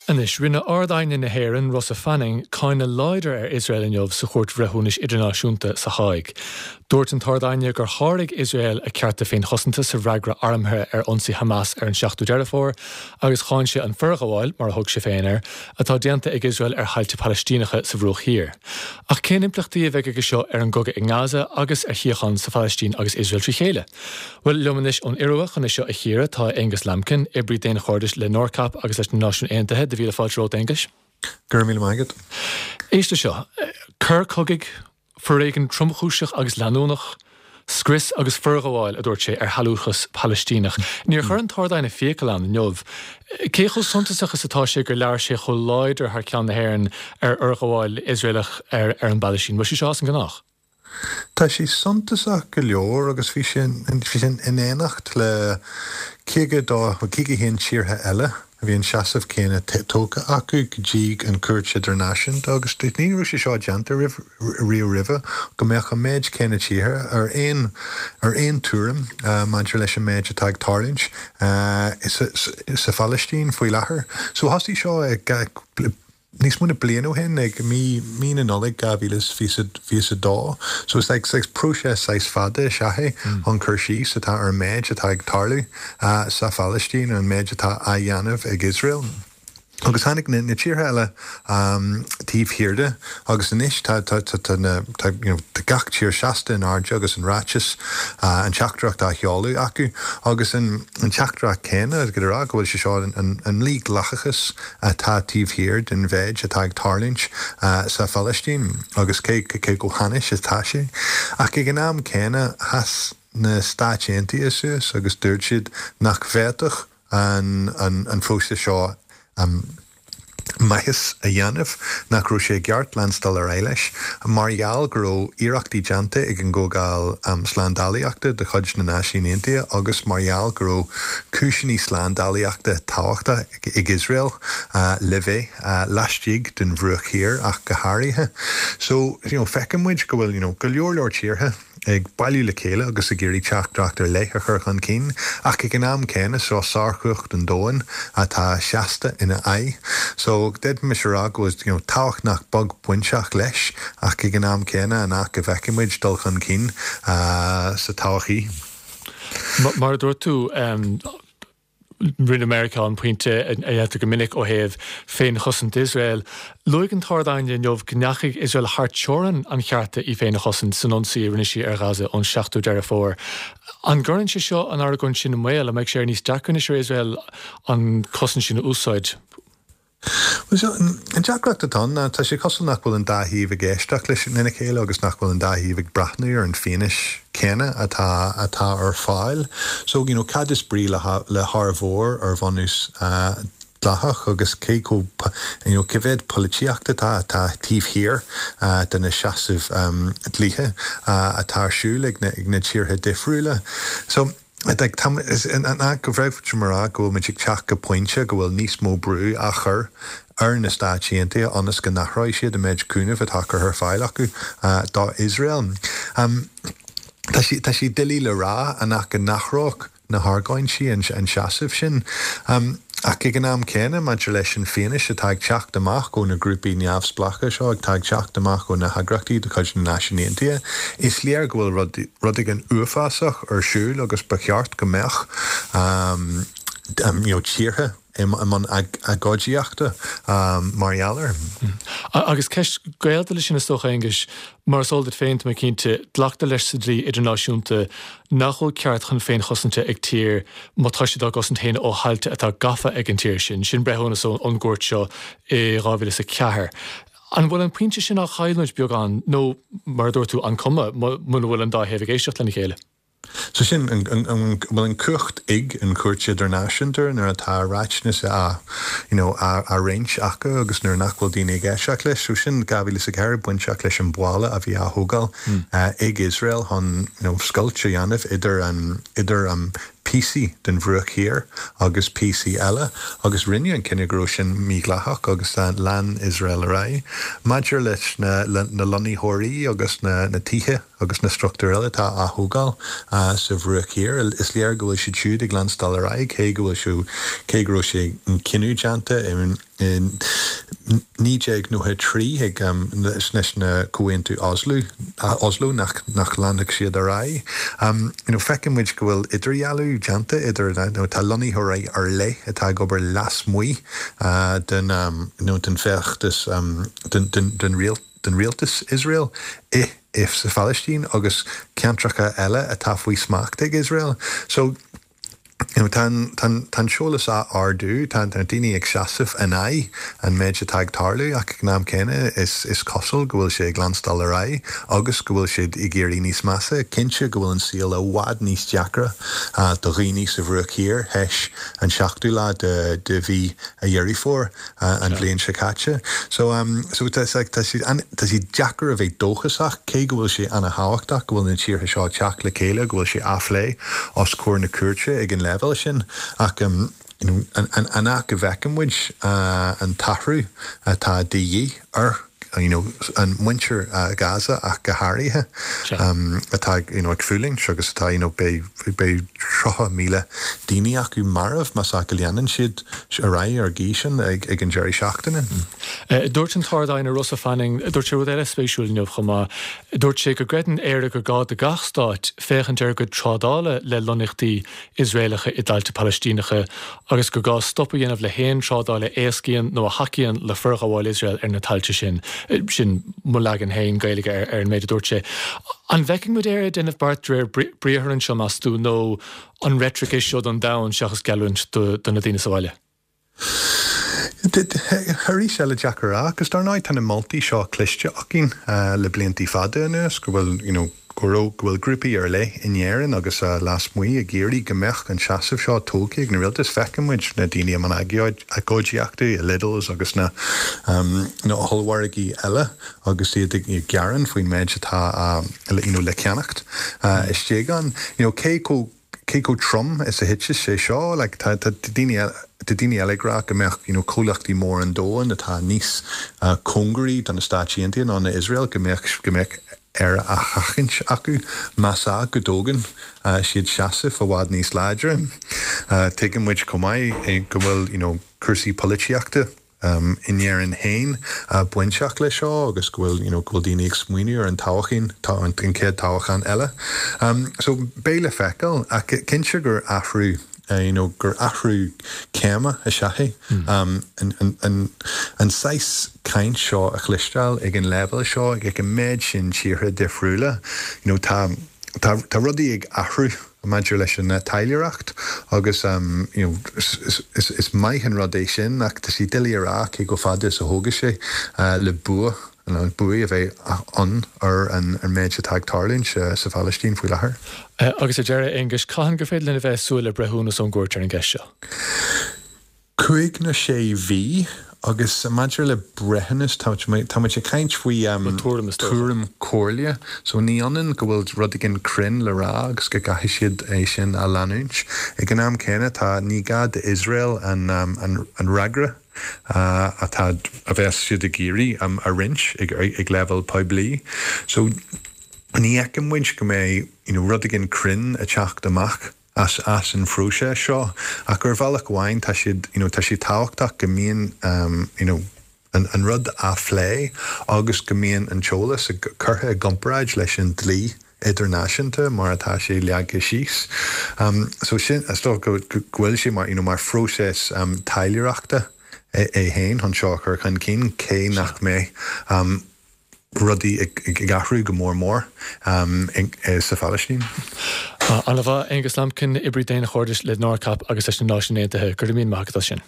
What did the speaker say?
Anois, rinne Ard-Aighne na hÉireann, Rosa Fanning, cáineadh láidir ar Iosrael inniu sa Chúirt Bhreithiúnais Idirnáisiúnta sa Háig. Dúirt an tArd-Aighne gur sháraigh Iosrael a cearta féinchosanta sa bhfreagra armtha ar ionsaí Hamas ar an 7ú Deireadh Fómhair agus cháin sé an forghabháil, mar a thug sé féin air, atá déanta ag Iosrael ar thailte Palaistíneacha sa Bhruach Thiar. Ach cén impleachtaí a bheidh aige seo ar an gcogadh i nGaza agus ar shíocháin sa Phalaistín agus Iosrael trí chéile? Bhuel, liom anois ón Iorua chun é seo a chíoradh tá Aonghus Lambkin, oibrí daonchairdis le NORCAP agus leis na Náisiúin Aontaithe. Do mhíle fáilte romhat, Aonghus. Go raibh míle maith agat. Éist leis seo. Coir cogaidh, foréigean tromchúiseach agus leanúnach, scrios agus forghabháil, a dúirt sé, ar shealúchas Palaistíneach. Níor chuir an tArd-Aighne fiacail ann inniu. Cé chomh suntasach is atá sé gur labhair sé chomh láidir thar ceann na hÉireann ar fhorghabháil Iosraelach ar an bPalaistín? Bhfuil sé seo as an ngnách? Tá sé suntasach go leor agus bhí sé in éineacht le 52, 51 tíortha eile a bhí an seasamh céanna tógtha acu go dtí an Chúirt Idirnáisiúnta agus ní raibh sé seo déanta riamh roimhe go mbeadh an méid céanna tíortha ar aon ar aon tuairim maidir leis an méid atá ag tarlúint sa Phalaistín faoi láthair. So thosaigh seo ag níos mó na bliain ó shin, ag mí mí na Nollag 2022. So is like saghas próiseas saghas fada is ea é chun cur síos atá ar an méid atá ag tarlú sa Phalaistín, ar an méid atá á dhéanamh ag Iosrael. Agus tháinig na na tíortha eile taobh thiar de agus anois tá tá tá tá na tá you know tá gach tír seasta in airde agus an ráiteas an teachtaireacht á sheoladh acu agus an an teachtaireacht céanna ag rá go bhfuil sé seo an an mhídhleathachas atá taobh thiar den mhéid atá ag tarlúint sa Phalaistín agus cé chomh hainnis atá sé. Ach ag an am céanna, sheas na Stáit Aontaithe suas agus dúirt siad nach bhféadfadh an próiseas seo maitheas a dhéanamh, nach raibh sé i gceart leanstáil ar aghaidh leis, mar gheall go raibh iarrachtaí déanta ag an gComhdháil Slándálaíochta de chuid na Náisiún Aontaithe agus mar gheall go raibh cúiseanna slándálaíochta tábhachtach ag Iosrael le bheith laistigh den Bhruach Thiar ach go háirithe. So, you know, feiceann muid go bhfuil, you know, go leor leor tíortha ag bailiú le chéile agus ag iarraidh teachtaireacht ar leith a chur chun cinn ach ag an am céanna seo sárchumhacht an domhain atá seasta ina aghaidh. So, d'fhéadfaimis a rá go bhfuil, you know, tábhacht nach beag bainteach leis ach ag an am céanna an ea go bhfeicfidh muid dul chun cinn sa todhchaí. Mar a dúirt tú, Rinne Meiriceá an pointe a dhéantar go minic ó thaobh féinchosaint Iosrael. Luaigh an tArd-Aighne inniu go ndeachaigh Iosrael thar teorainn an chearta í féin a chosaint san ionsaí a rinne sí ar Ghaza ón 7ú Deireadh Fómhair. An gcuireann sé seo an argóint sin i mbaol? An mbeidh sé níos deacra anois ar Iosrael an chosaint sin a úsáid? Bhuel, so, an deacracht atá ann ná tá sé cosúil nach bhfuil an dá thaobh ag éisteacht leis lena chéile agus nach bhfuil an dá thaobh ag breathnú ar an fianaise céanna atá atá ar fáil. So, you know, cad is brí le le hár mhór ar bhunús dleathach agus cé chomh, you know, cé mhéad polaitíocht atá atá taobh thiar de na seasaimh dlíthe atá ar siúl ag na ag na tíortha difriúla. So, An ea go bhféadfaimis a rá go bhfuil muid ag teacht go pointe go bhfuil níos mó brú á chur ar na Stáit Aontaithe ionas go n-athróidh siad an méid cúnaimh atá curtha ar fáil acu do Iosrael? Tá sé tá sé doiligh le rá an ea go n-athródh na hargóintí an seasamh sin. Ach ag an am céanna, maidir leis an fianaise atá ag teacht amach ó na grúpaí neamhspleácha seo, atá ag teacht amach ó na heagraíochtaí de chuid na Náisiún Aontaithe, is léir go bhfuil rud, rud éigin uafásach ar siúl agus ba cheart go mbeadh you know tíortha i mbun agóidíochta mar gheall air. Agus ceist gaolta leis sin is dócha, Aonghuis, mar is eol duit féin, tá mé cinnte, glactar leis sa dlí idirnáisiúnta nach bhfuil ceart chun féinchosanta ag tír má tá siad á gcosaint féin ó thailte atá gafa ag an tír sin. Sin breithiúnas ón gcúirt seo i 2004. An bhfuil an pointe sin á chailliúint beagán nó, mar a dúirt tú, an cuma muna bhfuil an dá thaobh ag éisteacht lena chéile? So sin, an bhfuil an cumhacht ag an Chúirt Idirnáisiúnta nuair atá ráiteas á, you know, á roinnt acu agus nuair nach bhfuil daoine ag éisteacht leis? So sin 2004 bainteach leis an bhalla a bhí á thógáil ag Iosrael chun, you know, scoilt a dhéanamh idir an, idir an. píosaí den Bhruach Thiar agus píosaí eile agus rinneadh an cinneadh go raibh sin mídhleathach agus lean Iosrael ar aghaidh. Maidir leis na lonnaitheoirí agus na tithe agus na struchtúir eile atá á thógáil sa Bhruach Thiar, is léir go bhfuil siad siúd ag leanstáil ar aghaidh cé go bhfuil cé go raibh sé an cinneadh déanta i In 1993 ag leis na Comhaontú Oslo, Oslo nach nach leanfadh siad ar aghaidh. You know feiceann muid go bhfuil idirdhealú déanta idir you know tá lonnaitheoirí ar leith atá ag obair lasmuigh den you know den feachtas den den den den rialtas Iosrael i i sa Phalaistín agus ceantracha eile atá faoi smacht ag Iosrael. So Tá an t-eolas á ardú, tá na daoine ag seasamh in aghaidh an méid atá ag tarlú ach ag an am céanna is cosúil go bhfuil sé ag leanstáil ar aghaidh agus go bhfuil siad ag éirí níos measa. Cinnte go bhfuil an saol i bhfad níos deacra do dhaoine sa Bhruach Thiar théis an seachtú lá de mhí Dheireadh Fómhair. an bhliain seo caite. So so tá sé tá sé tá sé deacair a bheith dóchasach cé go bhfuil sé ana-thábhachtach go bhfuil na tíortha seo ag teacht le chéile, go bhfuil sé á phlé os comhair na cúirte ag an leibhéal sin ach you know an an an áit go bhfeiceann muid an t-athrú atá de dhíth ar you know, an muintir Gaza ach go háirithe, atá you know, ag fulaingt agus atá you know, beidh, beidh 30,000 daoine acu marbh más ea go leanann siad ar aghaidh ar an gcaoi sin ag, ag an deireadh seachtaine. Dúirt an tArd-Aighne Rosa Fanning, dúirt sé rud eile spéisiúil inniu chomh maith, dúirt sé go gcreideann Éire gur gá do gach stát féachaint ar a gcuid trádála le lonnaíochtaí Iosraelacha i dtailte Palaistíneacha agus gur gá stop a dhéanamh le haon trádáil a éascaíonn nó a thacaíonn le forghabháil Iosrael ar na tailte sin. Sin mo leagan féin Gaeilge ar an méid a dúirt sé. An bhfeicfidh muid Éire ag déanamh beart de réir briathair anseo, meas tú, nó an reitric é seo don domhan seachas geallúint do na daoine sa bhaile? Arís eile deacair a rá, agus dar ndóigh tá na moltaí seo cloiste againn le bliantaí fada anuas go bhfuil you know go raibh, go bhfuil grúpaí ar leith in Éirinn agus lasmuigh ag iarraidh go mbeadh an seasamh seo tógtha ag na rialtais. Feiceann muid na daoine i mbun agóidíochta i Lidl's agus na na hollmhargaí eile agus iad ag gearán faoin méid atá you know le ceannacht istigh ann. You know cé chomh cé chomh trom is a thitfeas sé seo? Like tá tá daoine eile tá daoine eile ag rá go mbeadh you know comhlachtaí móra an domhain atá níos cóngaraí do na Stáit Aontaithe ná na Iosrael go mbeadh go mbeadh Éire á sheachaint acu más ea go dtógann siad seasamh i bhfad níos láidre. Tuigeann muid chomh maith go bhfuil you know cúrsaí polaitíochta in Éirinn féin bainteach leis seo agus go bhfuil you know go bhfuil daoine ag smaoineamh ar an toghchán, an chéad toghchán eile. So beidh le feiceáil ach cinnte gur athrú you know gur athrú céime is ea é an an an saghas caint seo a chloisteáil ag an leibhéal seo ag an méid sin tíortha difriúla you know tá tá tá rudaí ag athrú maidir leis an taidhleoireacht agus you know is maith an rud é sin ach tá sé doiligh a rá cé chomh fada is a thógfaidh sé le bua nó buaidh a bheith ann ar an méid atá ag tarlúint sa Phalaistín faoi láthair. Agus ar deireadh, Aonghus, cathain gur féidir linn a bheith ag súil le breithiúnas ón gcúirt ar an gceist seo? Cúig nó sé mhí, agus maidir le breithiúnas, tá muid ag caint faoi tuairim comhairle, so ní ionann go bhfuil rud éigin cruinn le rá agus go gcaithfidh siad é sin a leanúint. Ag an am céanna, tá, ní gá d'Iosrael an fhreagra atá, a bheas siad ag iarraidh a roinnt ag leibhéal poiblí. So ní fheiceann muid go mbeidh you know rud éigin cruinn ag teacht amach. as as an phróiseas seo ach ar bhealach amháin tá siad you know tá sé tábhachtach go mbíonn you know an an rud á phlé agus go mbíonn an t-eolas curtha i gcomparáid leis an dlí idirnáisiúnta mar atá sé leagtha síos. So sin is dócha go go bhfuil sé mar you know mar phróiseas taidhleoireachta é é féin chun seo a chur chun cinn cé nach mbeidh rudaí ag athrú go mór mór sa Phalaistín. Ana-mhaith, Aonghus Lambkin, oibrí daonchairdis le NORCAP agus leis na Náisiúin Aontaithe. Go raibh míle maith agat as sin.